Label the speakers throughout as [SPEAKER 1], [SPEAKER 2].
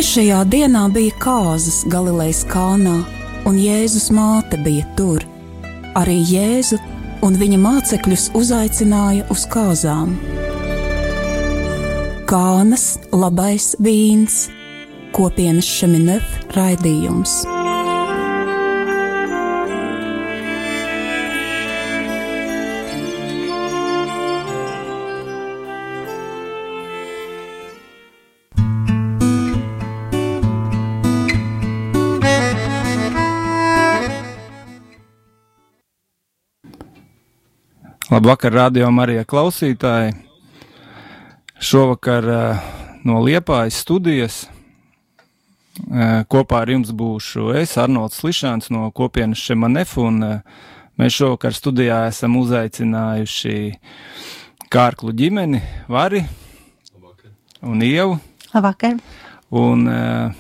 [SPEAKER 1] Trešajā dienā bija kāzas Galilejas kalnā, un Jēzus māte bija tur. Arī Jēzu un viņa mācekļus uzaicināja uz kāzām. Kānas labais vīns, kopienas Šeminef raidījums.
[SPEAKER 2] Labvakar, Radio Marija klausītāji! Šovakar no Liepājas studijas kopā ar jums būšu es, Arnolds Slišāns no kopienas Šeminef, un mēs šovakar studijā esam uzaicinājuši Kārklu ģimeni, Vari un Ievu.
[SPEAKER 3] Labvakar!
[SPEAKER 2] Un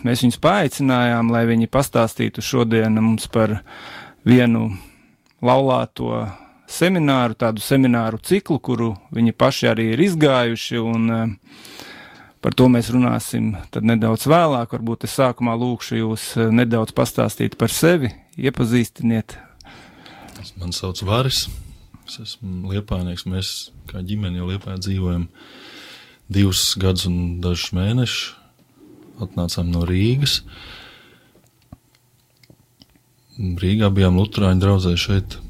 [SPEAKER 2] mēs viņus paaicinājām, lai viņi pastāstītu šodien mums par vienu laulāto semināru, tādu semināru ciklu, kuru viņi paši arī ir izgājuši, un par to mēs runāsim tad nedaudz vēlāk. Varbūt es sākumā lūkšu jūs nedaudz pastāstīt par sevi, iepazīstiniet.
[SPEAKER 4] Mani sauc Varis, es esmu liepājnieks, mēs kā ģimeni jau Liepājā dzīvojam 2 gadus un dažus mēnešus, atnācām no Rīgas. Rīgā bijām luterāņu draudzē, šeit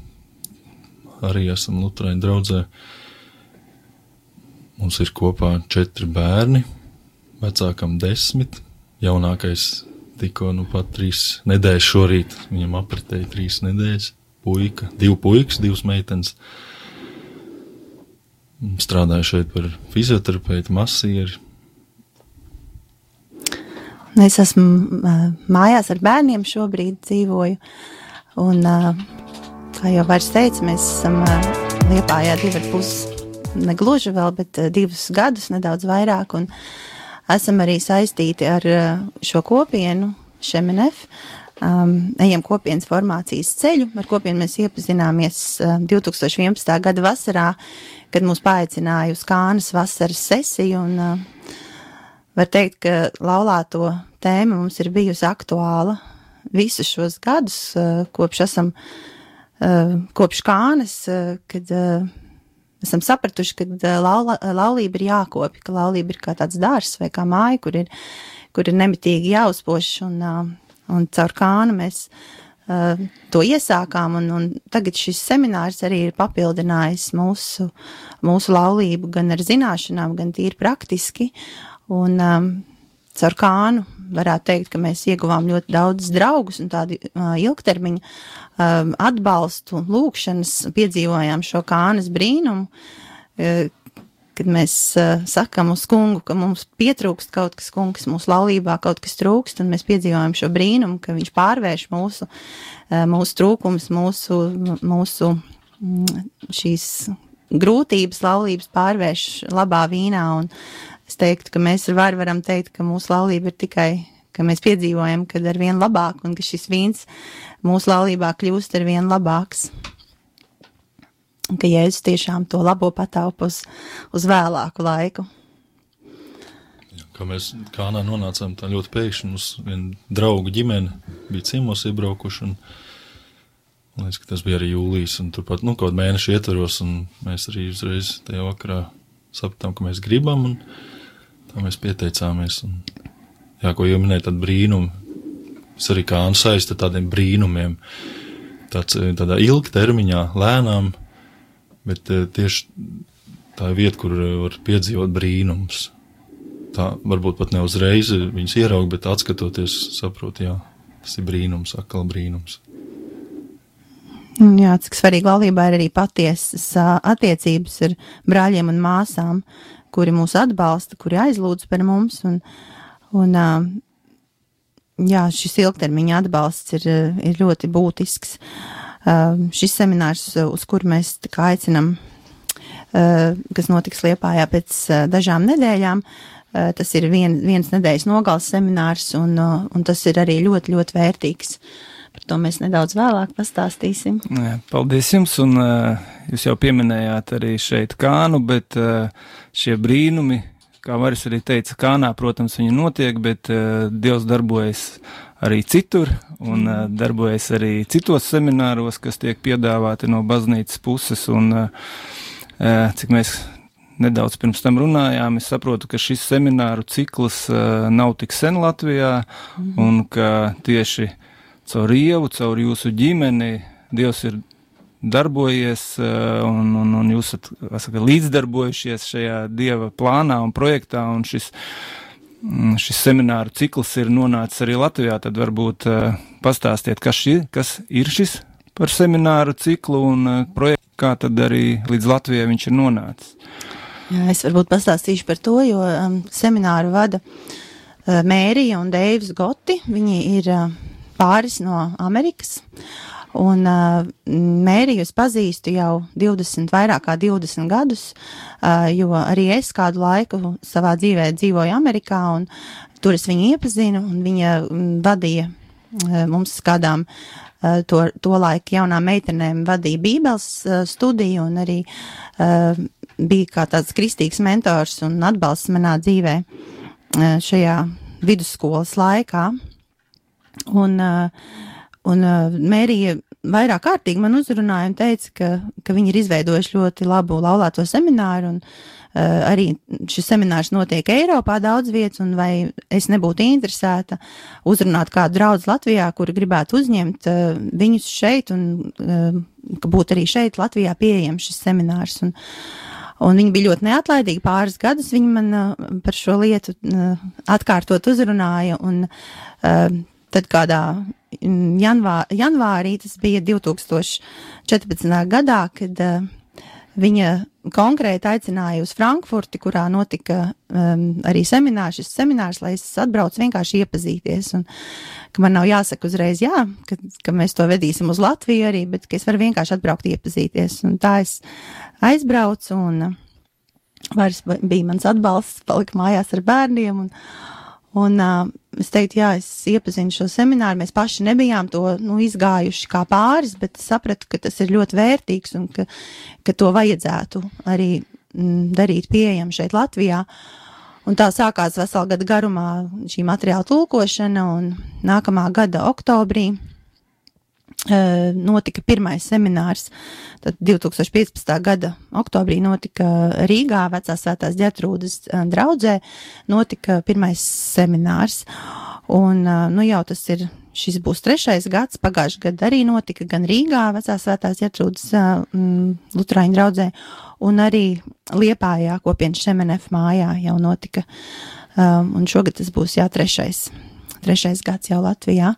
[SPEAKER 4] arī esam luterāņu draudzē. Mums ir kopā 4 bērni, vecākam 10, jaunākais tikko pat 3 nedēļas šorīt, viņam apritēja 3 nedēļas, puika, 2 puikas, 2 meitenes. Strādāju šeit par fizioterapeitu, masieri.
[SPEAKER 3] Es esmu mājās ar bērniem šobrīd dzīvoju, un kā jau Vairs teica, mēs esam Liepājā 2,5, negluži vēl, bet 2 gadus, nedaudz vairāk, un esam arī saistīti ar šo kopienu, Šeminef, ejam kopienas formācijas ceļu, ar kopienu mēs iepazināmies 2011. gada vasarā, kad mūs paaicināja uz Kānas vasaras sesiju, un var teikt, ka laulāto tēma mums ir bijusi aktuāla visus šos gadus, kopš Kānas, kad esam sapratuši, ka laulība ir jākopja, ka laulība ir kā tāds dārzs vai kā māja, kur ir nemitīgi jāuzpoš, un caur Kānu mēs to iesākām, un tagad šis seminārs arī ir papildinājis mūsu laulību gan ar zināšanām, gan tīri praktiski, un caur Kānu varētu teikt, ka mēs ieguvām ļoti daudz draugus un tādu ilgtermiņu atbalstu, lūkšanas, piedzīvojām šo Kānas brīnumu, kad mēs sakam uz kungu, ka mums pietrūkst kaut kas, kungs, mūsu laulībā kaut kas trūkst, un mēs piedzīvojam šo brīnumu, ka viņš pārvērš mūsu trūkumus, mūsu šīs grūtības, laulības pārvērš labā vīnā, un es teiktu, ka mēs ar Varu varam teikt, ka mūsu laulība ir tikai, ka mēs piedzīvojam, kad ar vien labāk, un ka šis vīns mūsu laulībā kļūst ar vien labāks. Un ka Jēzus tiešām to labo pataupa uz vēlāku laiku.
[SPEAKER 4] Kā mēs Kānā nonācām tā ļoti pēkšņi, mums viena draugu ģimene bija ciemos iebraukuši, un liekas, ka tas bija arī jūlijas, un turpat, kaut mēnešu ietvaros, un mēs arī uzreiz tajā vakarā sapratām, ka mēs gribam, un tā mēs pieteicāmies, un ko jau minēja tādu brīnumu, es arī Kānu saista tādiem brīnumiem, tādā ilgtermiņā, lēnām, bet tieši tā ir vieta, kur var piedzīvot brīnums. Tā varbūt pat ne uzreiz viņus ieraug, bet atskatoties saprot, tas ir brīnums, atkal brīnums.
[SPEAKER 3] Jā, cik svarīgi laulībā ir arī patiesas attiecības ar brāļiem un māsām, kuri mūs atbalsta, kuri aizlūdz par mums, un šis ilgtermiņa atbalsts ir ļoti būtisks. Šis seminārs, uz kuru mēs aicinam, kas notiks Liepājā pēc dažām nedēļām, tas ir viens nedēļas nogales seminārs, un tas ir arī ļoti, ļoti vērtīgs. Par to mēs nedaudz vēlāk pastāstīsim.
[SPEAKER 2] Paldies jums, un jūs jau pieminējāt arī šeit Kānu, bet šie brīnumi, kā Maris arī teica, Kānā, protams, viņa notiek, bet Dievs darbojas arī citur un darbojas arī citos semināros, kas tiek piedāvāti no baznīcas puses, un cik mēs nedaudz pirms tam runājām, es saprotu, ka šis semināru cikls nav tik sen Latvijā, un ka tieši caur Ievu, caur jūsu ģimeni Dievs ir darbojies, un jūs esat līdzdarbojušies šajā Dieva plānā un projektā, un šis semināru cikls ir nonācis arī Latvijā. Tad varbūt pastāstiet, kas ir šis par semināru ciklu un projektu, kā tad arī līdz Latvijai viņš ir nonācis.
[SPEAKER 3] Jā, es varbūt pastāstīšu par to, jo semināru vada Mērija un Deivs Goti. Viņi ir pāris no Amerikas, un Mēriju es pazīstu jau vairāk kā 20 gadus, jo arī es kādu laiku savā dzīvē dzīvoju Amerikā, un tur es viņu iepazinu, un viņa vadīja mums kādām to laiku jaunām meitenēm vadīja Bībeles studiju, un arī bija kā tāds kristīgs mentors un atbalsts manā dzīvē šajā vidusskolas laikā. Un Mērija vairāk kārtīgi man uzrunāja un teica, ka viņi ir izveidojuši ļoti labu laulāto semināru, un arī šis seminārs notiek Eiropā daudz vietas, un vai es nebūtu interesēta uzrunāt kādu draudzi Latvijā, kuri gribētu uzņemt viņus šeit, un ka būtu arī šeit Latvijā pieejams šis seminārs. Un viņi bija ļoti neatlaidīgi, pāris gadus viņi man par šo lietu atkārtot uzrunāja, un tad kādā janvārī, tas bija 2014. gadā, kad viņa konkrēti aicināja uz Frankfurti, kurā notika arī šis seminārs, lai es atbraucu vienkārši iepazīties, un ka man nav jāsaka uzreiz jā, ka mēs to vedīsim uz Latviju arī, bet ka es varu vienkārši atbraukt iepazīties, un tā es aizbraucu, un vairs bija mans atbalsts, palika mājās ar bērniem, un es teiktu, jā, es iepazinu šo semināru, mēs paši nebijām to izgājuši kā pāris, bet sapratu, ka tas ir ļoti vērtīgs un ka to vajadzētu arī darīt pieejam šeit Latvijā. Un tā sākās veselu gadu garumā šī materiāla tulkošana, un nākamā gada oktobrī notika pirmais seminārs. Tad 2015. gada oktobrī notika Rīgā, Vecās Svētās Ģertrūdes draudzē, notika pirmais seminārs. Un, jau šis būs 3. gads, pagājušajā gadā arī notika gan Rīgā, Vecās Svētās Ģertrūdes luterāņu draudzē, un arī Liepājā, Kopienas Šemenef mājā jau notika. Un šogad tas būs 3. gads jau Latvijā.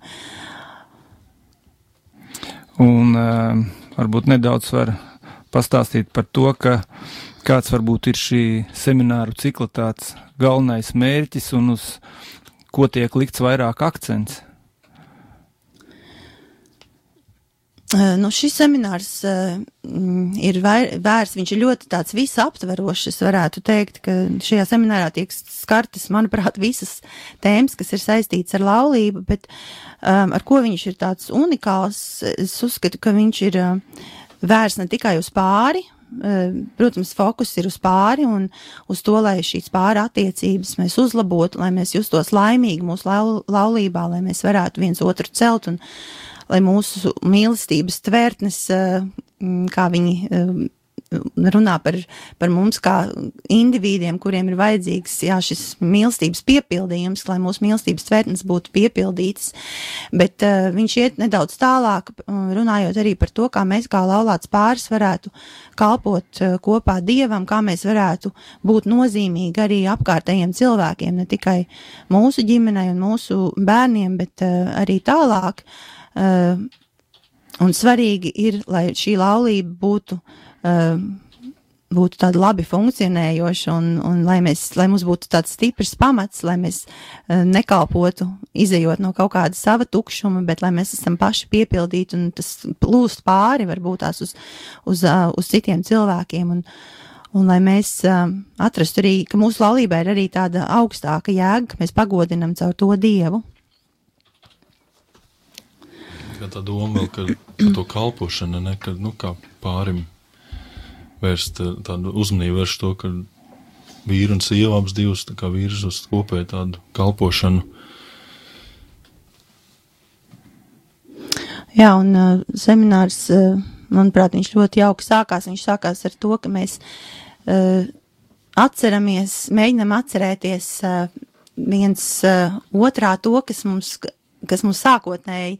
[SPEAKER 2] Un varbūt nedaudz var pastāstīt par to, kāds varbūt ir šī semināru cikla tāds galvenais mērķis un uz ko tiek likts vairāk akcents.
[SPEAKER 3] Šis seminārs ir vērsts, viņš ir ļoti tāds visaptverošs, es varētu teikt, ka šajā seminārā tiek skartas, manuprāt, visas tēmas, kas ir saistītas ar laulību, bet ar ko viņš ir tāds unikāls, es uzskatu, ka viņš ir vērsts ne tikai uz pāri, protams, fokus ir uz pāri un uz to, lai šīs pāri attiecības mēs uzlabotu, lai mēs justos laimīgi mūsu laulībā, lai mēs varētu viens otru celt un lai mūsu mīlestības tvērtnes, kā viņi runā par mums kā indivīdiem, kuriem ir vajadzīgs, šis mīlestības piepildījums, lai mūsu mīlestības tvērtnes būtu piepildītas, bet viņš iet nedaudz tālāk, runājot arī par to, kā mēs kā laulāts pāris varētu kalpot kopā Dievam, kā mēs varētu būt nozīmīgi arī apkārtējiem cilvēkiem, ne tikai mūsu ģimenei un mūsu bērniem, bet arī tālāk. Un svarīgi ir, lai šī laulība būtu tāda labi funkcionējoša un lai mums būtu tāds stiprs pamats, lai mēs nekalpotu, izejot no kaut kāda sava tukšuma, bet lai mēs esam paši piepildīti un tas plūst pāri varbūt tās uz citiem cilvēkiem un lai mēs atrastu arī, ka mūsu laulībā ir arī tāda augstāka jēga, ka mēs pagodinam caur to Dievu.
[SPEAKER 4] Tā doma vēl, ka to kalpošana, ne, ka, kā pārim vērst tādu uzmanību vērst to, ka vīru un sievu abas divas tā kā virz uz kopēju tādu kalpošanu.
[SPEAKER 3] Jā, un seminārs, manuprāt, viņš ļoti jauki sākās. Viņš sākās ar to, ka mēs mēģinam atcerēties viens otrā to, kas mums sākotnēji,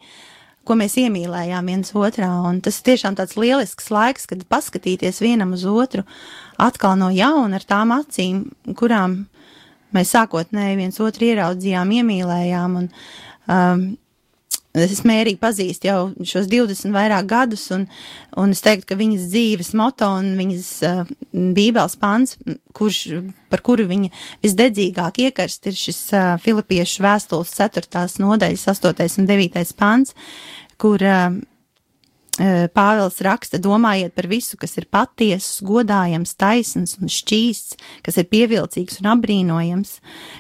[SPEAKER 3] ko mēs iemīlējām viens otrā, un tas tiešām tāds lielisks laiks, kad paskatīties vienam uz otru atkal no jauna ar tām acīm, kurām mēs sākotnēji viens otru ieraudzījām, iemīlējām, un es Mēriju pazīstu jau šos 20 vairāk gadus, un es teiktu, ka viņas dzīves moto un viņas bībeles pants, par kuru viņa visdedzīgāk iekarst, ir šis Filipiešu vēstules 4. nodaļas 8. un 9. pants, kur Pāvils raksta: domājiet par visu, kas ir patiesas, godājams, taisns un šķīsts, kas ir pievilcīgs un apbrīnojams,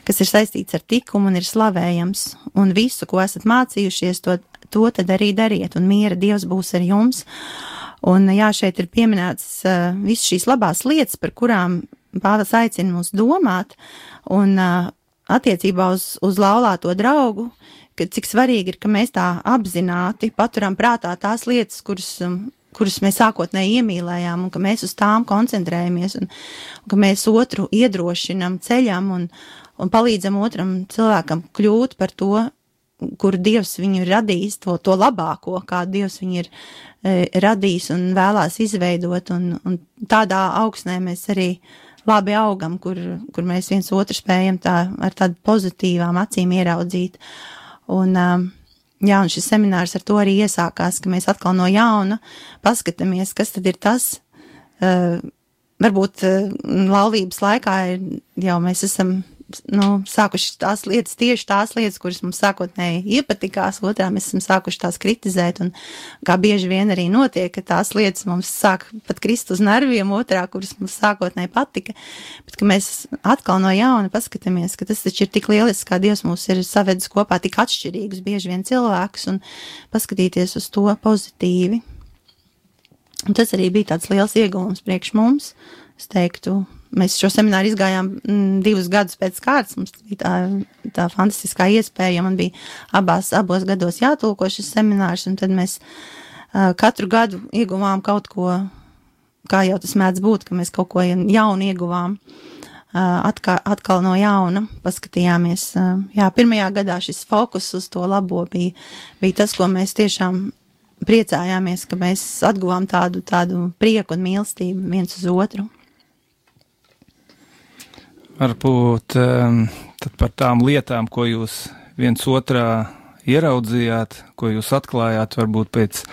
[SPEAKER 3] kas ir saistīts ar likumu un ir slavējams, un visu, ko esat mācījušies, to tad arī dariet, un miera Dievs būs ar jums. Un jā, šeit ir pieminēts visas šīs labās lietas, par kurām Pāvils aicina mūs domāt, un attiecībā uz laulāto draugu, ka cik svarīgi ir, ka mēs tā apzināti paturam prātā tās lietas, kuras mēs sākotnēji iemīlējām, un ka mēs uz tām koncentrējamies, un ka mēs otru iedrošinam, ceļam un palīdzam otram cilvēkam kļūt par to, kuru Dievs viņu ir radījis, to labāko, kā Dievs viņu ir radījis un vēlās izveidot, un tādā augsnē mēs arī labi augam, kur mēs viens otru spējam ar tādu pozitīvām acīm ieraudzīt. Un šis seminārs ar to arī iesākās, ka mēs atkal no jauna paskatāmies, kas tad ir tas, varbūt laulības laikā jau mēs esam sākuši tieši tās lietas, kuras mums sākotnēji iepatikās, otrā mēs esam sākuši tās kritizēt, un kā bieži vien arī notiek, ka tās lietas mums sāk pat krist uz nerviem, otrā, kuras mums sākotnēji patika, bet ka mēs atkal no jauna paskatāmies, ka tas taču ir tik lielisks, kā Dievs mūs ir savedis kopā tik atšķirīgus bieži vien cilvēkus, un paskatīties uz to pozitīvi. Un tas arī bija tāds liels ieguvums priekš mums, es teiktu. Mēs šo semināru izgājām 2 gadus pēc kārtas, mums bija tā fantastiskā iespēja, man bija abos gados jātulko šis seminārs, un tad mēs katru gadu ieguvām kaut ko, kā jau tas mēdz būt, ka mēs kaut ko jaunu ieguvām, atkal no jauna paskatījāmies. Jā, pirmajā gadā šis fokus uz to labo bija tas, ko mēs tiešām priecājāmies, ka mēs atguvām tādu prieku un mīlestību viens uz otru.
[SPEAKER 2] Varbūt tad par tām lietām, ko jūs viens otrā ieraudzījāt, ko jūs atklājāt, varbūt pēc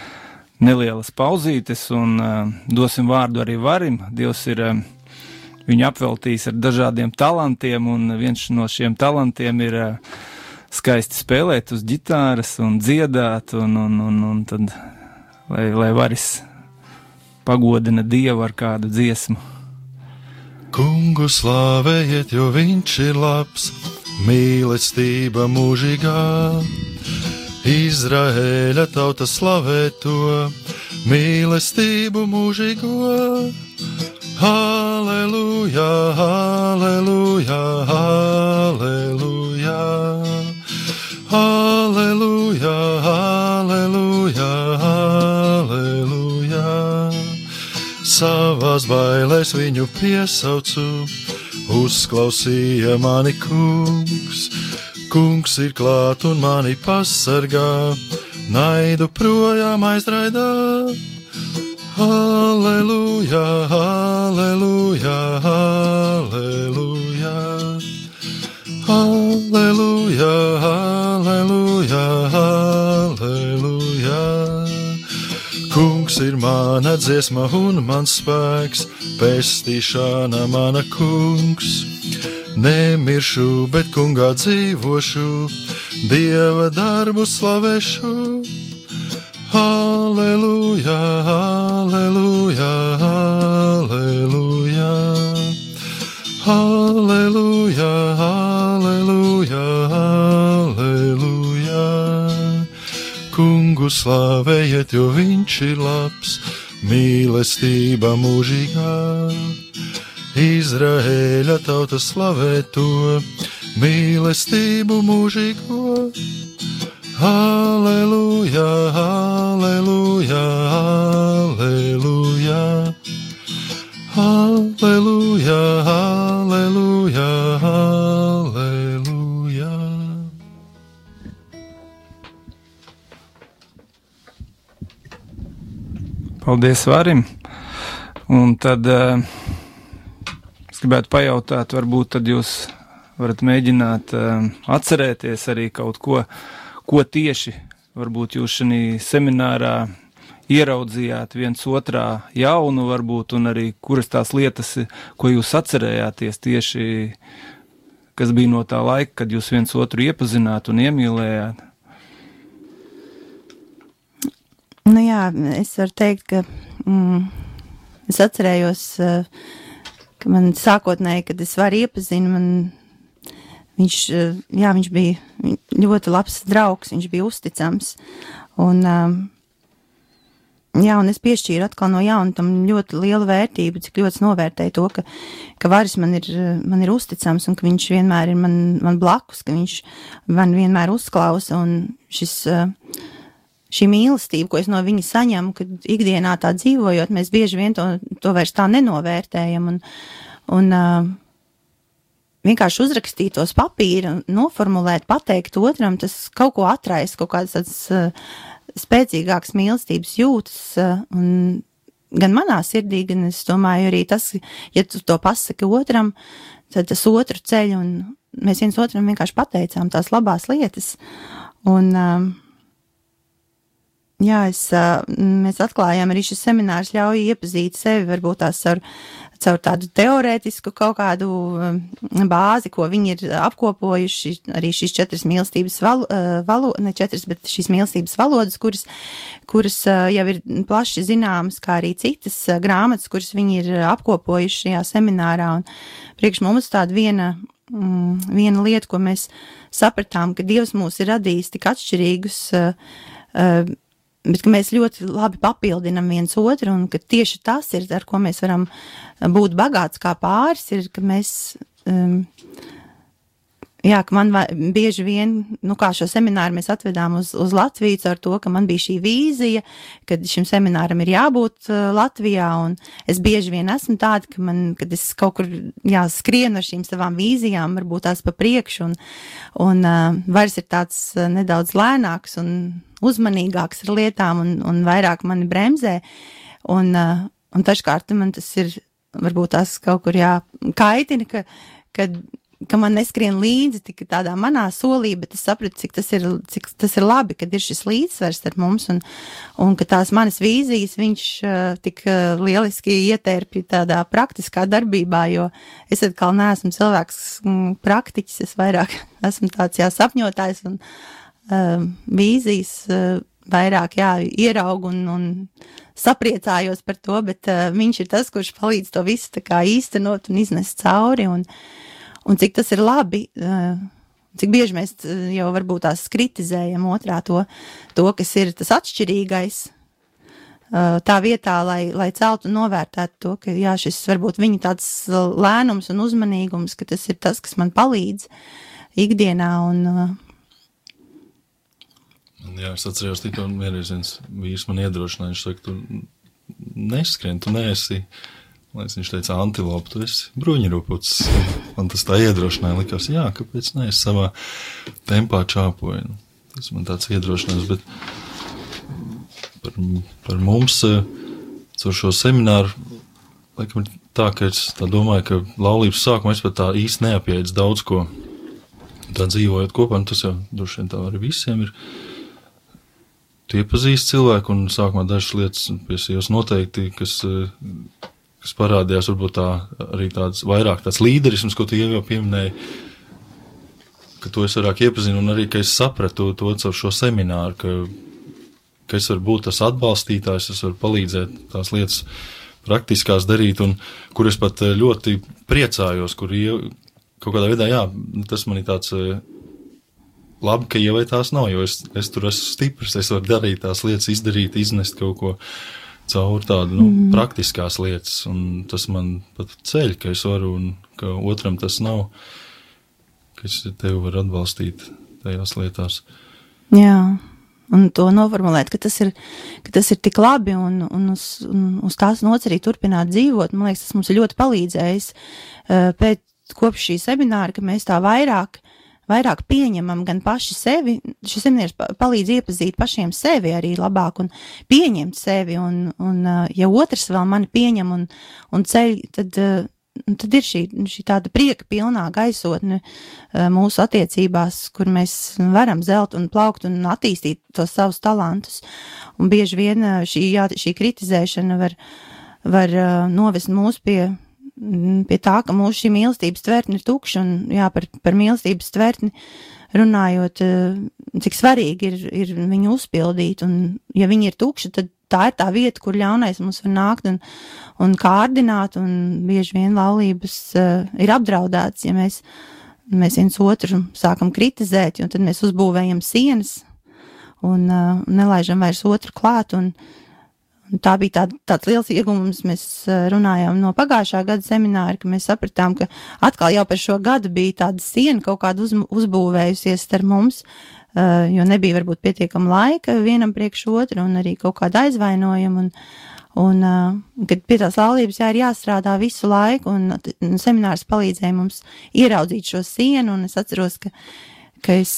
[SPEAKER 2] nelielas pauzītes, un dosim vārdu arī Varim. Dievs ir viņu apveltījis ar dažādiem talantiem, un viens no šiem talantiem ir skaisti spēlēt uz ģitāras un dziedāt, un tad, lai Varis pagodina Dievu ar kādu dziesmu.
[SPEAKER 4] Kungu slāvējiet, jo viņš ir labs, mīlestība mūžīgā. Izraēļa tauta slavē to, mīlestību mūžīgo. Halleluja, halleluja, halleluja. Halleluja, halleluja, halleluja. Savās bailēs viņu piesaucu, uzklausīja mani kungs. Kungs ir klāt un mani pasargā, naidu projām aizraidā. Halleluja, halleluja, halleluja. Halleluja, halleluja, halleluja. Kungs ir mana dziesma un mans spēks, pestīšana mana kungs. Nemiršu, bet kungā dzīvošu, Dieva darbu slavēšu. Halleluja, halleluja, halleluja. Halleluja, halleluja, halleluja. Kungu slavējiet, jo viņš ir labs, mīlestība mūžīgā. Izraēļa tauta slavē to mīlestību mūžīgo. Halleluja, halleluja, halleluja, halleluja, halleluja, halleluja.
[SPEAKER 2] Paldies Varim. Un tad es gribētu pajautāt, varbūt tad jūs varat mēģināt atcerēties arī kaut ko tieši varbūt jūs šajā seminārā ieraudzījāt viens otrā jaunu varbūt, un arī kuras tās lietas, ko jūs atcerējāties tieši, kas bija no tā laika, kad jūs viens otru iepazināt un iemīlējāt?
[SPEAKER 3] Nu jā, es varu teikt, ka es atcerējos, ka man sākotnēji, kad es varu iepazinu, viņš bija ļoti labs draugs, viņš bija uzticams, un es piešķīru atkal no jauna tam ļoti lielu vērtību, cik ļoti novērtēju to, ka Varis man ir uzticams, un ka viņš vienmēr ir man blakus, ka viņš man vienmēr uzklausa, un šī mīlestība, ko es no viņa saņemu, kad ikdienā tā dzīvojot, mēs bieži vien to vairs tā nenovērtējam, un vienkārši uzrakstīt tos papīra, noformulēt, pateikt otram, tas kaut ko atraisa, kaut kāds tāds spēcīgāks mīlestības jūtas, un gan manā sirdī, gan es domāju arī tas, ja tu to pasaki otram, tad tas otru ceļ, un mēs viens otram vienkārši pateicām tās labās lietas, un mēs atklājām arī šis seminārs ļauj iepazīt sevi, varbūt tās caur tādu teorētisku kaut kādu bāzi, ko viņi ir apkopojuši, arī šīs 4 mīlestības ne 4, bet šīs mīlestības valodas, kuras jau ir plaši zināmas, kā arī citas grāmatas, kuras viņi ir apkopojuši šajā seminārā, un priekš mums tāda viena lieta, ko mēs sapratām, ka Dievs mūs ir radījis tik atšķirīgus, bet ka mēs ļoti labi papildinam viens otru, un ka tieši tas ir, ar ko mēs varam būt bagāts kā pāris, ir, ka mēs, ka man bieži vien, kā šo semināru mēs atvedām uz Latviju ar to, ka man bija šī vīzija, kad šim semināram ir jābūt Latvijā, un es bieži vien esmu tāda, kad es kaut kur skrienu ar šīm savām vīzijām, varbūt tās pa priekšu, un vairs ir tāds nedaudz lēnāks un uzmanīgāks ar lietām un vairāk mani bremzē, un taškārt man tas ir, varbūt tās kaut kur kaitina, ka man neskrien līdzi tik tādā manā solī, bet es sapratu, cik tas ir labi, kad ir šis līdzsvars ar mums, un ka tās manas vīzijas viņš tik lieliski ietērpja tādā praktiskā darbībā, jo es atkal neesmu cilvēks praktiķis, es vairāk esmu tāds sapņotājs, un vīzijas vairāk ieraugu un sapriecājos par to, bet viņš ir tas, kurš palīdz to visu tā kā īstenot un iznest cauri, un cik tas ir labi, cik bieži mēs jau varbūt tās kritizējam otrā to, kas ir tas atšķirīgais, tā vietā, lai celtu un novērtētu to, ka šis varbūt viņa tāds lēnums un uzmanīgums, ka tas ir tas, kas man palīdz ikdienā, un
[SPEAKER 4] es atceros tikko vienreiz viens vīrs man iedrošināja, viņš saka, tu neskrien, tu neesi, viņš teica, antilopa, tu esi bruņurupucis. Man tas tā iedrošināja, likās, kāpēc ne, es savā tempā čāpoju. Tas man tāds iedrošinājums, bet par mums, caur šo semināru, laikam tā, ka es tā domāju, ka laulības sākumā es pat tā īsti neapjēdzu daudz ko, tā dzīvojot kopā, un tas jau droši vien tā arī visiem ir. Tu iepazīsti cilvēku, un sākumā dažas lietas pie sievas noteikti, kas parādījās, varbūt arī vairāk tāds līderisms, ko tu jau pieminēji, ka to es vairāk iepazinu, un arī, ka es sapratu to caur šo semināru, ka es varu būt tas atbalstītājs, es varu palīdzēt tās lietas praktiskās darīt, un kur es pat ļoti priecājos, kur kaut kādā veidā, tas man ir tāds labi, ka ievai tās nav, jo es tur esmu stiprs, es varu darīt tās lietas, izdarīt, iznest kaut ko, caur tādu, praktiskās lietas, un tas man pat ceļ, ka es varu, un ka otram tas nav, ka es tevi varu atbalstīt tajās lietās.
[SPEAKER 3] Jā. Un to noformulēt, ka tas ir tik labi un uz tās nots arī turpināt dzīvot. Man liekas, tas mums ir ļoti palīdzējis kopš šī semināra, ka mēs tā vairāk pieņemam gan paši sevi. Šis seminārs palīdz iepazīt pašiem sevi arī labāk un pieņemt sevi. Un ja otrs vēl mani pieņem un ceļ, tad ir šī tāda prieka pilnā gaisotne mūsu attiecībās, kur mēs varam zelt un plaukt un attīstīt tos savus talantus. Un bieži vien šī kritizēšana var novest mūs pie tā, ka mūsu šī mīlestības tvertne ir tukša, un jā, par mīlestības tvertni runājot, cik svarīgi ir viņu uzpildīt, un ja viņi ir tukši, tad tā ir tā vieta, kur ļaunais mums var nākt un kārdināt, un bieži vien laulības ir apdraudētas, ja mēs viens otru sākam kritizēt, un tad mēs uzbūvējam sienas un nelaižam vairs otru klāt, un tā bija tāds liels ieguvums. Mēs runājām no pagājušā gada semināra, ka mēs sapratām, ka atkal jau par šo gadu bija tāda siena kaut kāda uzbūvējusies starp mums, jo nebija varbūt pietiekama laika vienam priekš otru un arī kaut kāda aizvainojuma, un kad pie tās laulības ir jāstrādā visu laiku, un seminārs palīdzēja mums ieraudzīt šo sienu, un es atceros, ka es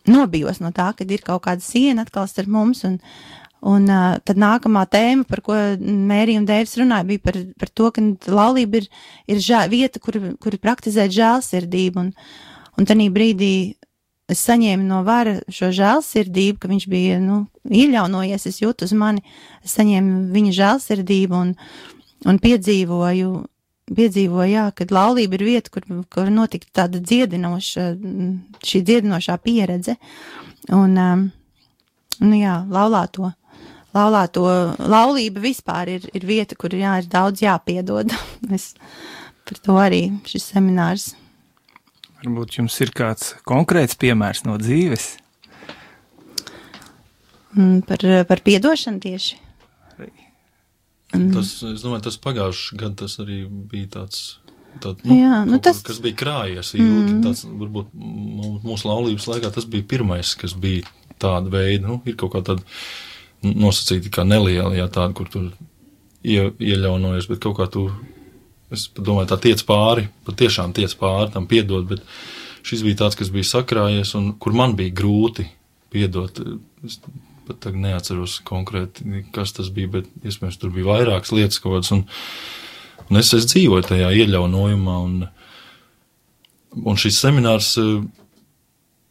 [SPEAKER 3] nobijos no tā, kad ir kaut kāda siena atkal starp mums, un tad nākamā tēma, par ko Mērija un Dēvis runāja, bija par to, ka laulība ir vieta, kur praktizēt žēlsirdību, un tanī brīdī es saņēmu no Vara šo žēlsirdību, ka viņš bija, ieļaunojies, es jūtu uz mani, es saņēmu viņa žēlsirdību un piedzīvoju, jā, kad laulība ir vieta, kur notika tāda šī dziedinošā pieredze, un jā, laulība vispār ir vieta, kur ir daudz jāpiedod. Par to arī šis seminārs.
[SPEAKER 2] Varbūt jums ir kāds konkrēts piemērs no dzīves?
[SPEAKER 3] Par piedošanu tieši.
[SPEAKER 4] Es domāju, tas pagājuši gadu tas arī bija tāds kas bija krājies. Tāds, varbūt mūsu laulības laikā tas bija pirmais, kas bija tāda veida, ir kaut kā tāda nosacīta kā neliela, tāda, kur tu ieļaunojies, bet kaut kā tu, es domāju, tā tiec pāri, patiešām tiec pāri, tam piedot, bet šis bija tāds, kas bija sakrājies un kur man bija grūti piedot. Es pat tagad neatceros konkrēti, kas tas bija, bet iespējams tur bija vairākas lietas kaut kādas, un es dzīvoju tajā ieļaunojumā, un šis seminārs,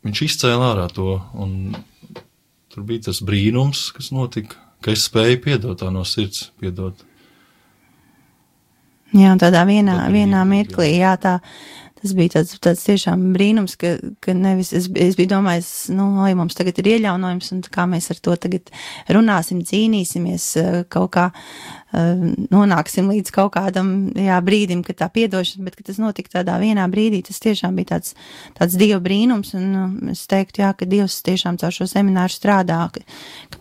[SPEAKER 4] viņš izcēla ārā to, un tur bija tas brīnums, kas notika, ka es spēju piedot tā no sirds, piedot.
[SPEAKER 3] Jā, un tādā vienā mirklī, jā, tas bija tāds tiešām brīnums, ka nevis, es biju domājis, mums tagad ir ieļaunojums, un kā mēs ar to tagad runāsim, cīnīsimies, kaut kā nonāksim līdz kaut kādam, brīdim, kad tā piedošana, bet, ka tas notika tādā vienā brīdī, tas tiešām bija tāds Dieva brīnums, un es teiktu, jā, ka Dievs tiešām caur šo semināru strādā, ka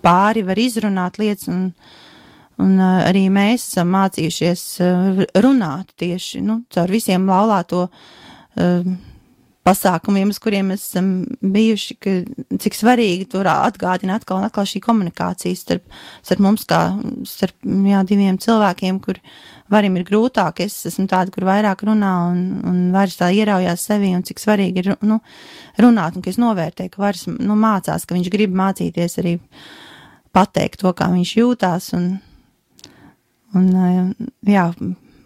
[SPEAKER 3] pāri var izrunāt lietas, un arī mēs esam mācījušies runāt tieši, caur visiem laulāto pasākumiem, uz kuriem mēs esam bijuši, ka cik svarīgi tur atgādina atkal un atkal šī komunikācija starp mums kā starp diviem cilvēkiem, kur Varim ir grūtāk, es esmu tāda, kur vairāk runā un Varis tā ieraujās sevi, un cik svarīgi ir runāt, un ka es novērtēju, ka Varis mācās, ka viņš grib mācīties arī pateikt to, kā viņš jūtās, un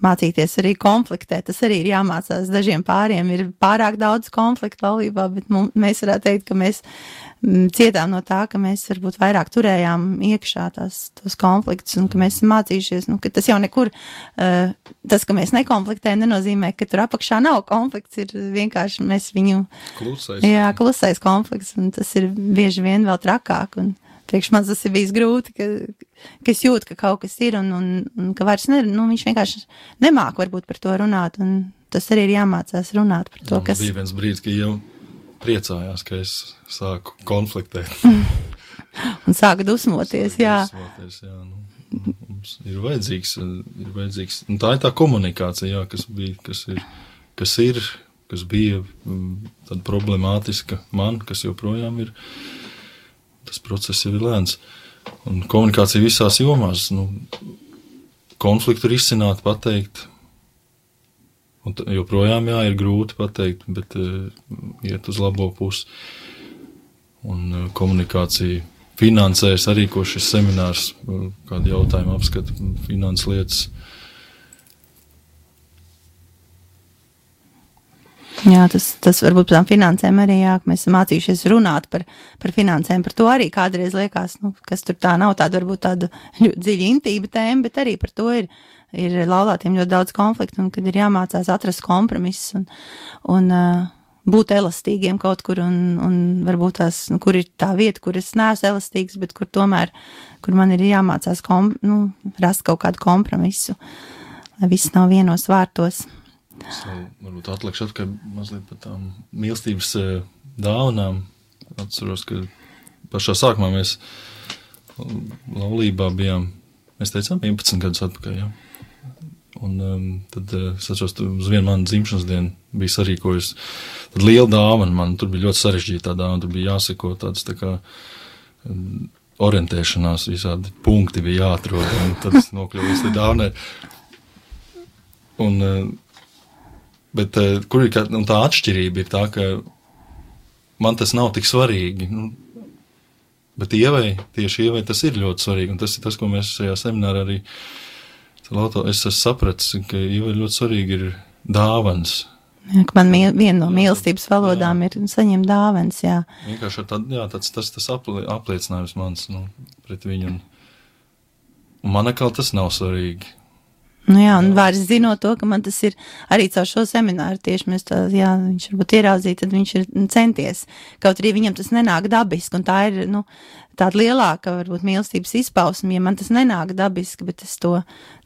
[SPEAKER 3] mācīties arī konfliktēt, tas arī ir jāmācās. Dažiem pāriem ir pārāk daudz konfliktu laulībā, bet mēs varētu teikt, ka mēs cietām no tā, ka mēs varbūt vairāk turējām iekšā tos konfliktus, un ka mēs esam mācījušies, ka tas jau nekur, tas, ka mēs nekonfliktējam, nenozīmē, ka tur apakšā nav konflikts, ir vienkārši mēs viņu... Klusais konflikts, un tas ir bieži vien vēl trakāk, un priekš man tas ir bijis grūti, ka es jūtu, ka kaut kas ir, un ka vairs viņš vienkārši nemāk varbūt par to runāt, un tas arī ir jāmācās runāt par to, kas...
[SPEAKER 4] Bija viens brīdis, ka jau priecājās, ka es sāku konfliktēt.
[SPEAKER 3] Un sāku dusmoties, jā.
[SPEAKER 4] Mums ir vajadzīgs, un tā ir tā komunikācija, jā, kas bija tāda problemātiska man, kas joprojām ir, tas process jau ir lēns. Un komunikācija visās jomās, konfliktu ir izcināt, pateikt, un joprojām, jā, ir grūti pateikt, bet iet uz labo pusi. Un komunikācija finansēs arī, ko šis seminārs, kādu jautājumu apskata, finanses lietas.
[SPEAKER 3] Jā, tas varbūt par tām finansēm arī, jā, ka mēs esam mācījušies runāt par finansēm, par to arī kādreiz liekas, kas tur tā nav tāda varbūt tāda dziļa intība tēma, bet arī par to ir laulātiem ļoti daudz konfliktu, un kad ir jāmācās atrast kompromiss un būt elastīgiem kaut kur, un varbūt tās, kur ir tā vieta, kur es neesmu elastīgs, bet kur tomēr, kur man ir jāmācās rast kaut kādu kompromisu, lai viss nav vienos vārtos.
[SPEAKER 4] Es varbūt atlikšu atkai mazliet par tām mīlestības dāvanām. Atceros, ka pašā sākumā mēs laulībā bijām, mēs teicām 11 gadus atpakaļ, jā. Un tad es atceros, uz vienu manu dzimšanas dienu bija sarīkojusi tad liela dāvana man, tur bija ļoti sarežģītā dāvana, tur bija jāseko tāds tā kā orientēšanās, visādi punkti bija jāatrod, un tad es nokļuvu līdz dāvanai. Bet kur ir tā atšķirība ir tā, ka man tas nav tik svarīgi, bet tieši Ievai tas ir ļoti svarīgi, un tas ir tas, ko mēs šajā seminārā arī es esmu sapratis, ka Ievai ļoti svarīgi ir dāvans.
[SPEAKER 3] Jā, ka man viena no mīlestības valodām ir saņemt dāvans, jā.
[SPEAKER 4] Vienkārši tas apliecinājums mans, pret viņu, un man atkal tas nav svarīgi.
[SPEAKER 3] Jā, un vairs zinot to, ka man tas ir arī caur šo semināru tieši mēs viņš varbūt ieraudzīja, tad viņš ir centies. Kaut arī viņam tas nenāk dabiski, un tā ir, tāda lielāka, varbūt, mīlestības izpausme, ja man tas nenāk dabiski, bet es to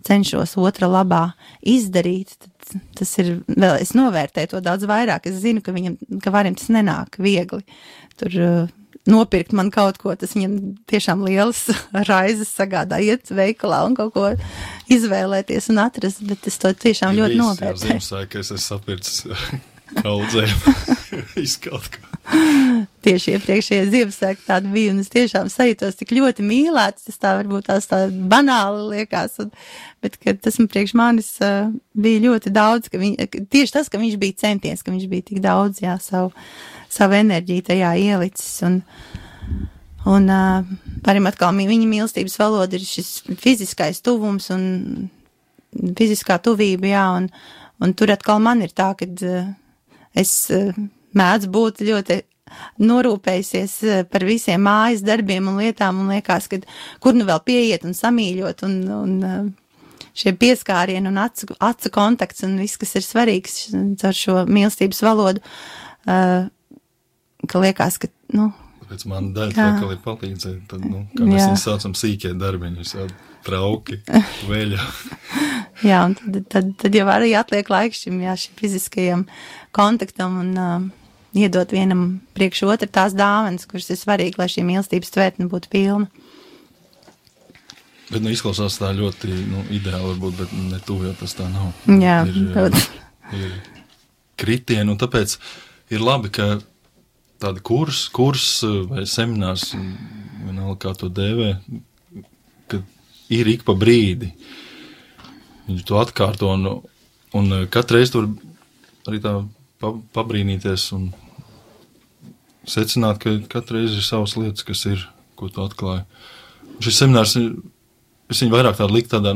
[SPEAKER 3] cenšos otra labā izdarīt, tad tas ir, vēl es novērtēju to daudz vairāk. Es zinu, ka varim tas nenāk viegli. Tur nopirkt man kaut ko, tas viņam tiešām lielas raizes sagādā, iet veikalā un kaut ko izvēlēties un atrast, bet es to tiešām ļoti novērtēju.
[SPEAKER 4] Jā, Ziemassvētku, ka es esmu sapircis kaudzēm, izkaut ko.
[SPEAKER 3] Tieši iepriekšējie Ziemassvētku tāda bija, un es tiešām sajūtos tik ļoti mīlēts, tas tā varbūt tās tā banāli liekas, bet kad tas man priekš manis bija ļoti daudz, tieši tas, ka viņš bija centies, ka viņš bija tik daudz, jā, savu enerģiju tajā ielicis, un parim atkal viņa mīlestības valoda ir šis fiziskais tuvums un fiziskā tuvība, jā, un tur atkal man ir tā, kad es mēdzu būt ļoti norūpējusies par visiem mājas darbiem un lietām, un liekas, ka kur nu vēl pieiet un samīļot, un šie pieskārieni un acu kontakts un viss, kas ir svarīgs caur šo mīlestības valodu, ka liekas, ka,
[SPEAKER 4] Tāpēc man daļa vēl ir palīdzēt, tad, kā mēs viņus saucam sīkie darbiņi, visādi trauki, veļa.
[SPEAKER 3] Jā, un tad jau arī atliek laiks šim fiziskajam kontaktam un iedot vienam priekš otru tās dāvanas, kuras ir svarīgi, lai šī mīlestības tvertne būtu pilna.
[SPEAKER 4] Bet, izklausās tā ļoti, ideāli varbūt, bet ne tuvu, jo tas tā nav.
[SPEAKER 3] Jā,
[SPEAKER 4] ir kritieni, un tāpēc ir labi, ka tāda kurs vai seminārs, vienalga kā to dēvē, ka ir ik pa brīdi. Viņš to atkārto, un katreiz tur arī tā pabrīnīties un secināt, ka katreiz ir savas lietas, kas ir, ko tu atklāji. Šis seminārs, es viņu vairāk tādu likt tādā,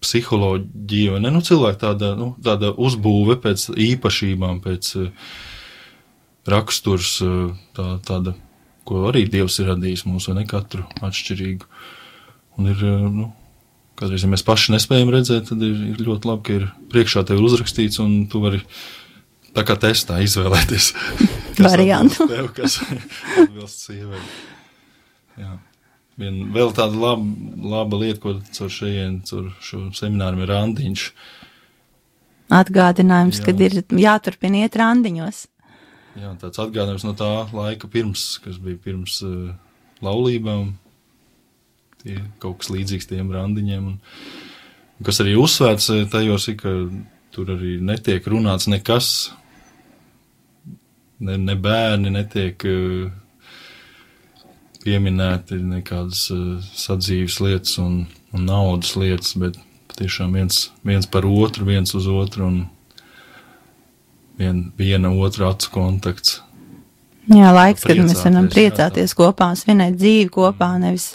[SPEAKER 4] psiholoģija, vai ne, cilvēku tāda uzbūve pēc īpašībām, pēc raksturs, tāda, ko arī Dievs ir radījis mums, vai ne, katru atšķirīgu. Un ir, kādreiz, ja mēs paši nespējam redzēt, tad ir ļoti labi, ka ir priekšā tev uzrakstīts, un tu vari tā kā testā izvēlēties.
[SPEAKER 3] Variantu.
[SPEAKER 4] Tev, kas atbilst sievai. Jā. Vēl tāda laba lieta, ko caur šo semināru ir randiņš.
[SPEAKER 3] Atgādinājums, kad ir jāturpina iet randiņos.
[SPEAKER 4] Jā, tāds atgādinājums no tā laika kas bija pirms laulībām. tie kaut kas līdzīgs tiem randiņiem. Un kas arī uzsvērts tajos ir, ka tur arī netiek runāts nekas, ne bērni netiek pieminēti nekādas sadzīves lietas un naudas lietas, bet patiešām viens par otru, viens uz otru un viena otra acu kontakts.
[SPEAKER 3] Jā, laiks, kad mēs varam priecāties kopā, svinēt dzīvi kopā, nevis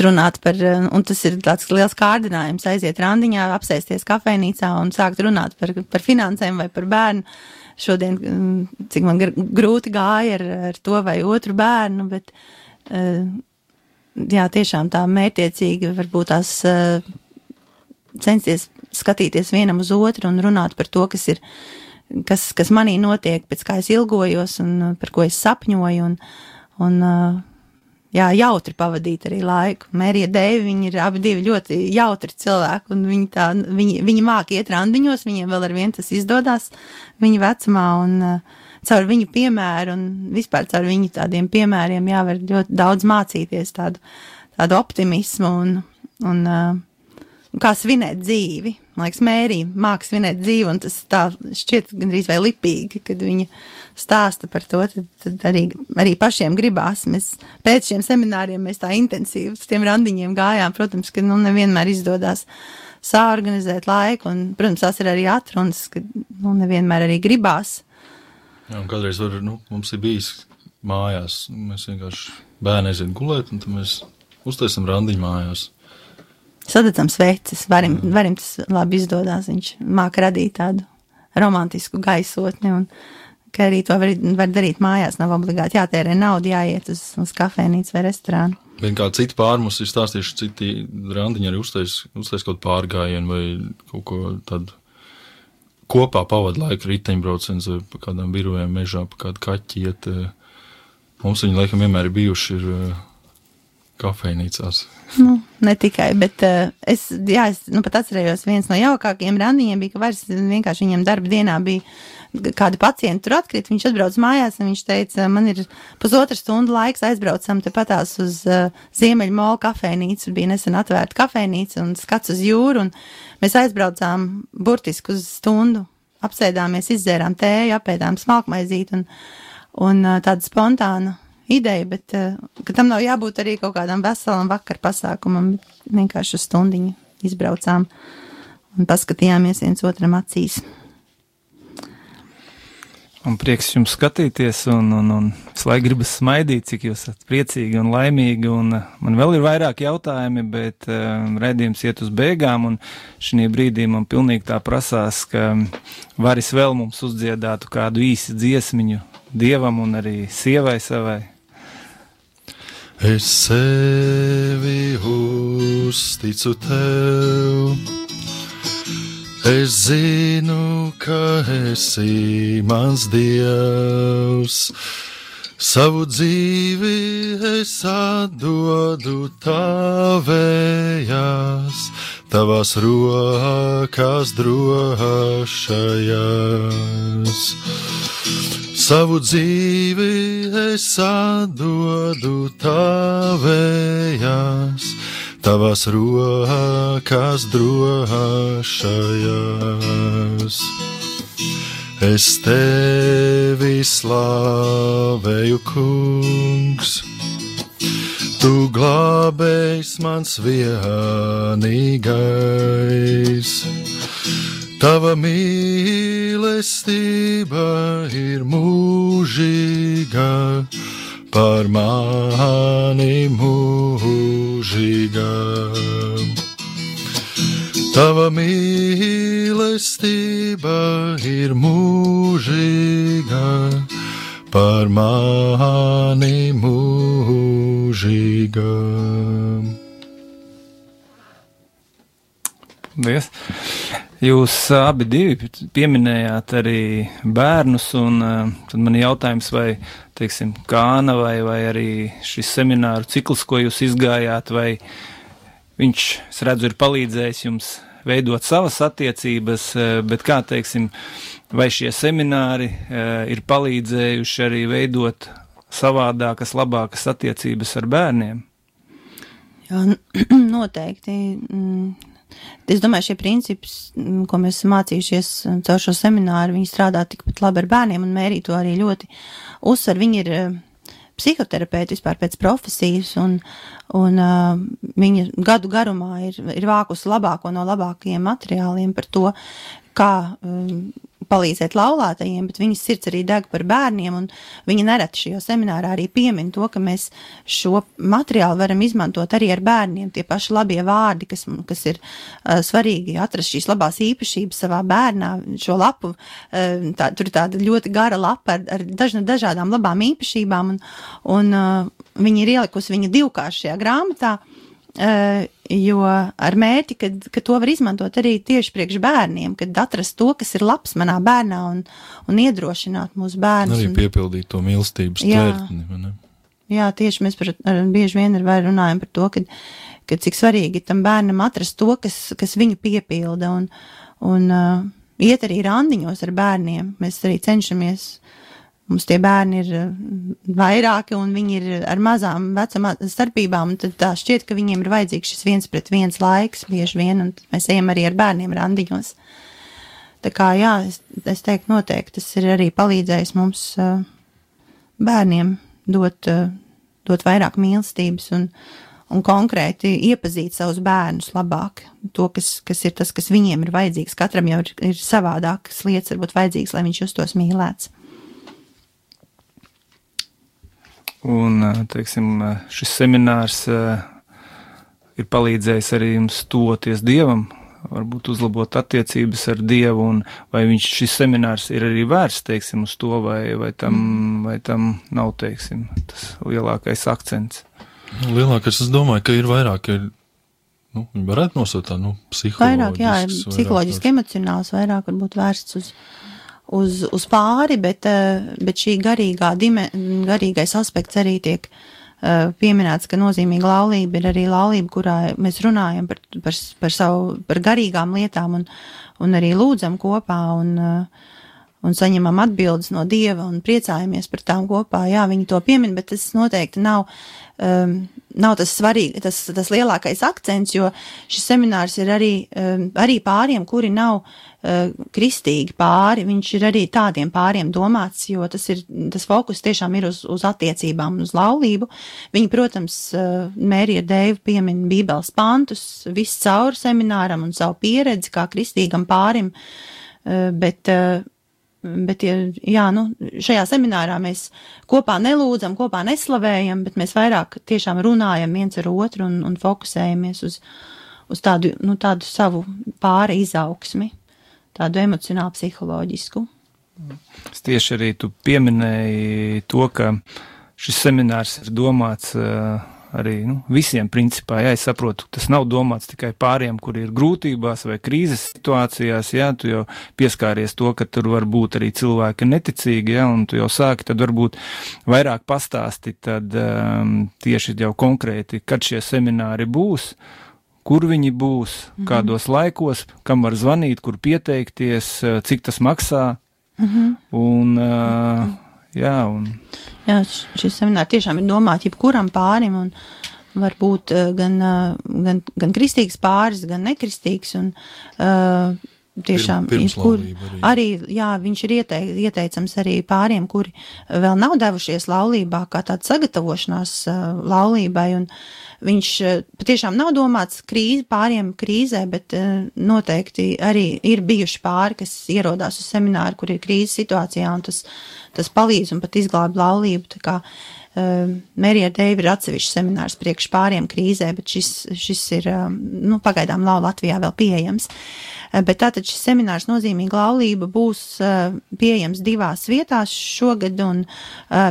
[SPEAKER 3] runāt par, un tas ir tāds liels kārdinājums, aiziet randiņā, apsēsties kafejnīcā un sākt runāt par finansēm vai par bērnu. Šodien, cik man grūti gāja ar to vai otru bērnu, bet jā, tiešām tā mērķiecīgi varbūt tās censties skatīties vienam uz otru un runāt par to, kas manī notiek, pēc kā es ilgojos un par ko es sapņoju un jā, jautri pavadīt arī laiku. Mērija Deivi, viņi ir abi divi ļoti jautri cilvēki un viņi māk iet randiņos, viņiem vēl ar vien tas izdodās viņa vecumā un caur viņu piemēru un vispār caur viņu tādiem piemēriem jāvar ļoti daudz mācīties tādu optimismu un kā svinēt dzīvi. Man liekas, Mērija māk svinēt dzīvi, un tas tā šķiet gandrīz vai lipīgi, kad viņa stāsta par to, tad arī pašiem gribās. Mēs pēc šiem semināriem mēs tā intensīvi uz tiem randiņiem gājām. Protams, ka nevienmēr izdodās saorganizēt laiku, un, protams, tās ir arī atrunas, ka nevienmēr arī gribās.
[SPEAKER 4] Jā, un kādreiz mums ir bijis mājās, mēs vienkārši bērni aiziet gulēt, un tad mēs uztaisam randiņu mājās.
[SPEAKER 3] Sadedzam sveces, varim tas labi izdodās, viņš māk radīt tādu romantisku gaisotni, un ka arī to var darīt mājās, nav obligāti jātērē naudu, jāiet uz kafejnīcu vai restorānu.
[SPEAKER 4] Vien kā citi pārmus ir stāstījuši, citi randiņi arī uztais kaut pārgājienu vai kaut ko tādu kopā pavada laiku riteņbrauciens vai pa kādām birojām mežā, pa kādu kaķi iet. Mums viņi laikam vienmēr ir bijuši kafejnīcās.
[SPEAKER 3] Ne tikai, bet es pat atcerējos, viens no jaukākajiem randiņiem bija, ka vairs vienkārši viņam darba dienā bija kādi pacienti tur atkrīt, viņš atbrauc mājās un viņš teica, man ir 1,5 stundu laiks, aizbraucam te patās uz Ziemeļu Molu kafejnīcu, bija nesen atvērta kafejnīca un skats uz jūru, un mēs aizbraucām burtiski uz stundu, apsēdāmies, izdzērām tēju, apēdām smalkmaizīti un tāda spontāna ideja, bet ka tam nav jābūt arī kaut kādam veselam vakar pasākumam, vienkārši uz stundiņu izbraucām un paskatījāmies viens otram acīs.
[SPEAKER 2] Un prieks jums skatīties, un visu laiku gribas smaidīt, cik jūs esat priecīgi un laimīgi, un man vēl ir vairāk jautājumi, bet raidījums iet uz beigām, un šī brīdī man pilnīgi tā prasās, ka varis vēl mums uzdziedātu kādu īsi dziesmiņu Dievam un arī sievai savai.
[SPEAKER 4] Es sevi uzticu tev, es zinu, ka esi mans Dievs, savu dzīvi es atdodu tavējās, tavās rokās drošajās. Savu dzīvi es atdodu tavējās, tavās rokās drošajās. Es tevi slavēju, kungs, tu glābējs mans vienīgais. Tava mīlestība ir mūžīga, par mani mūžīga. Tava mīlestība ir mūžīga, par mani mūžīga.
[SPEAKER 2] Paldies! Jūs abi divi pieminējāt arī bērnus, un tad man jautājums, vai, teiksim, Kāna vai arī šis semināru cikls, ko jūs izgājāt, vai viņš, es redzu, ir palīdzējis jums veidot savas attiecības, bet kā, teiksim, vai šie semināri ir palīdzējuši arī veidot savādākas, labākas attiecības ar bērniem?
[SPEAKER 3] Jā, noteikti. Es domāju, šie principi, ko mēs esam mācījušies caur šo semināru, viņi strādā tikpat labi ar bērniem, un Mērija to arī ļoti uzsver. Viņi ir psihoterapeiti vispār pēc profesijas, un viņa gadu garumā ir vākusi labāko no labākajiem materiāliem par to, kā palīdzēt laulātajiem, bet viņas sirds arī deg par bērniem, un viņa nereti šajā seminārā arī piemin to, ka mēs šo materiālu varam izmantot arī ar bērniem, tie paši labie vārdi, kas ir svarīgi atrast šīs labās īpašības savā bērnā, šo lapu, tur ir tāda ļoti gara lapa ar dažādām labām īpašībām, un viņa ir ielikusi viņa divkāršajā grāmatā, jo ar mērķi, ka to var izmantot arī tieši priekš bērniem, kad atrast to, kas ir labs manā bērnā un iedrošināt mūsu bērnus.
[SPEAKER 4] Arī piepildīt to mīlestības tvērtni.
[SPEAKER 3] Jā, tieši mēs bieži vien runājam par to, ka cik svarīgi tam bērnam atrast to, kas viņu piepilda un iet arī randiņos ar bērniem. Mēs arī cenšamies. Mums tie bērni ir vairāki, un viņi ir ar mazām vecuma starpībām, un tad tā šķiet, ka viņiem ir vajadzīgs šis 1-pret-1 laiks bieži vien, un mēs ejam arī ar bērniem randiņos. Tā kā, jā, es teiktu noteikti, tas ir arī palīdzējis mums bērniem dot vairāk mīlestības un konkrēti iepazīt savus bērnus labāk. To, kas ir tas, kas viņiem ir vajadzīgs. Katram jau ir savādākas lietas, varbūt vajadzīgs, lai viņš justos mīlēts.
[SPEAKER 2] Un, teiksim, šis seminārs ir palīdzējis arī jums tuvoties Dievam, varbūt uzlabot attiecības ar Dievu, un vai šis seminārs ir arī vērsts, teiksim, uz to, vai tam nav, teiksim, tas lielākais akcents?
[SPEAKER 3] Lielākais,
[SPEAKER 4] es domāju, ka ir vairāk, viņi varētu nosaukt tā, psiholoģisks.
[SPEAKER 3] Vairāk, jā, psiholoģiski emocionāls, vairāk varbūt vērsts uz pāri, bet šī garīgais aspekts arī tiek pieminēts, ka nozīmīga laulība ir arī laulība, kurā mēs runājam par garīgām lietām un arī lūdzam kopā un saņemam atbildes no Dieva un priecājamies par tām kopā. Jā, viņi to piemin, bet tas noteikti nav tas svarīgi, tas lielākais akcents, jo šis seminārs ir arī pāriem, kuri nav kristīgi pāri, viņš ir arī tādiem pāriem domāts, jo tas fokus tiešām ir uz attiecībām, uz laulību. Viņi, protams, Mērija Deiva piemin Bībeles pantus, viss cauri semināram un savu pieredzi kā kristīgam pārim, bet jā, šajā seminārā mēs kopā nelūdzam, kopā neslavējam, bet mēs vairāk tiešām runājam viens ar otru un fokusējamies uz tādu savu pāri izaugsmi, tādu emocionālu psiholoģisku.
[SPEAKER 2] Es tieši arī tu pieminēji to, ka šis seminārs ir domāts arī visiem principā. Jā, es saprotu, tas nav domāts tikai pāriem, kuri ir grūtībās vai krīzes situācijās, jā, tu jau pieskāries to, ka tur var būt arī cilvēki neticīgi, jā, un tu jau sāki tad varbūt vairāk pastāstīt tad tieši jau konkrēti, kad šie semināri būs, kur viņi būs, kādos laikos, kam var zvanīt, kur pieteikties, cik tas maksā, un jā,
[SPEAKER 3] šis seminārs tiešām ir domāts jebkuram pārim, un var būt gan kristīgs pāris, gan nekristīgs, un tiešām arī, jā, viņš ir ieteicams arī pāriem, kuri vēl nav devušies laulībā, kā tāda sagatavošanās laulībai, un viņš patiešām nav domāts pāriem krīzē, bet noteikti arī ir bijuši pāri, kas ierodās uz semināru, kur ir krīzes situācijā, un tas palīdz un pat izglāb laulību, tā kā Mērija Deiva ir atsevišķs seminārs priekš pāriem krīzē, bet šis ir, pagaidām Latvijā vēl pieejams. Bet tātad šis seminārs Nozīmīga laulība būs pieejams 2 vietās šogad, un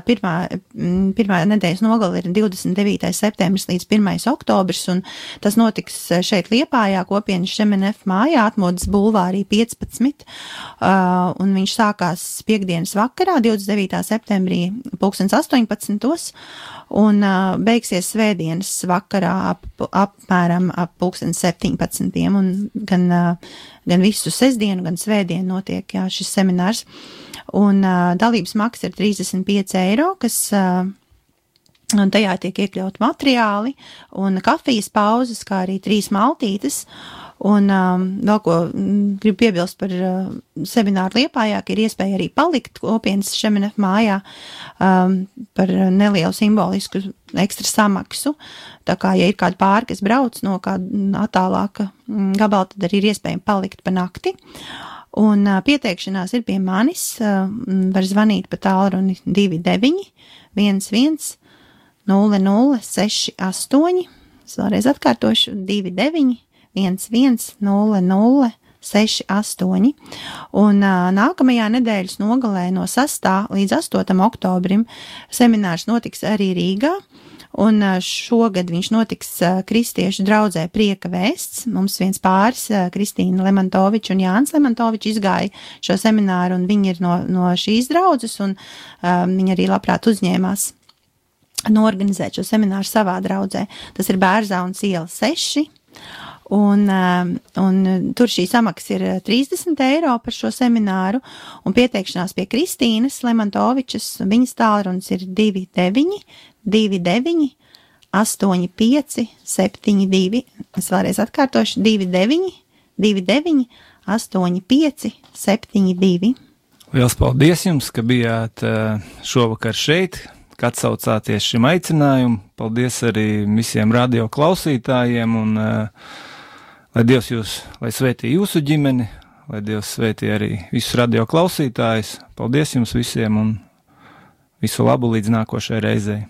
[SPEAKER 3] pirmā nedēļas nogale ir 29. septembris līdz 1. oktobris, un tas notiks šeit Liepājā, kopienas Šemenef mājā, Atmodas bulvārī 15, un viņš sākās piekdienas vakarā, 29. septembrī 18. Un beigsies svētdienas vakarā apmēram ap 17. Un gan visu sestdienu, gan svētdienu notiek šis seminārs. Un dalības maksa ir 35 eiro, kas Un tajā tiek iekļaut materiāli un kafijas pauzes, kā arī 3 maltītes. Un vēl ko gribu piebilst par semināru Liepājā, ka ir iespēja arī palikt kopienas Šemenef mājā par nelielu simbolisku ekstra samaksu. Tā kā, ja ir kādi pāri, kas brauc no kāda attālāka gabala, tad arī ir iespējami palikt pa nakti. Un pieteikšanās ir pie manis, var zvanīt pa tālruni 29 11 0068, es vēlreiz atkārtošu 29 11 0068, un nākamajā nedēļas nogalē no 6. līdz 8. oktobrim seminārs notiks arī Rīgā, un šogad viņš notiks kristiešu draudzē Prieka vēsts. Mums viens pāris, Kristīna Lemantoviča un Jānis Lemantovičs, izgāja šo semināru, un viņi ir no šīs draudzes, un viņi arī labprāt uzņēmās norganizēt šo semināru savā draudzē. Tas ir Bērzaunas iela 6, un tur šī samaksa ir 30 eiro par šo semināru, un pieteikšanās pie Kristīnas Lemantovičas, viņas tālrunis ir 29 29 85 72, es vēlreiz atkārtošu 29 29 85 72.
[SPEAKER 2] Liels paldies jums, ka bijāt šovakar šeit, ka atsaucāties šim aicinājumam. Paldies arī visiem radio klausītājiem, un lai Dievs lai svētī jūsu ģimeni, lai Dievs svētī arī visus radio klausītājus. Paldies jums visiem un visu labu līdz nākošai reizei.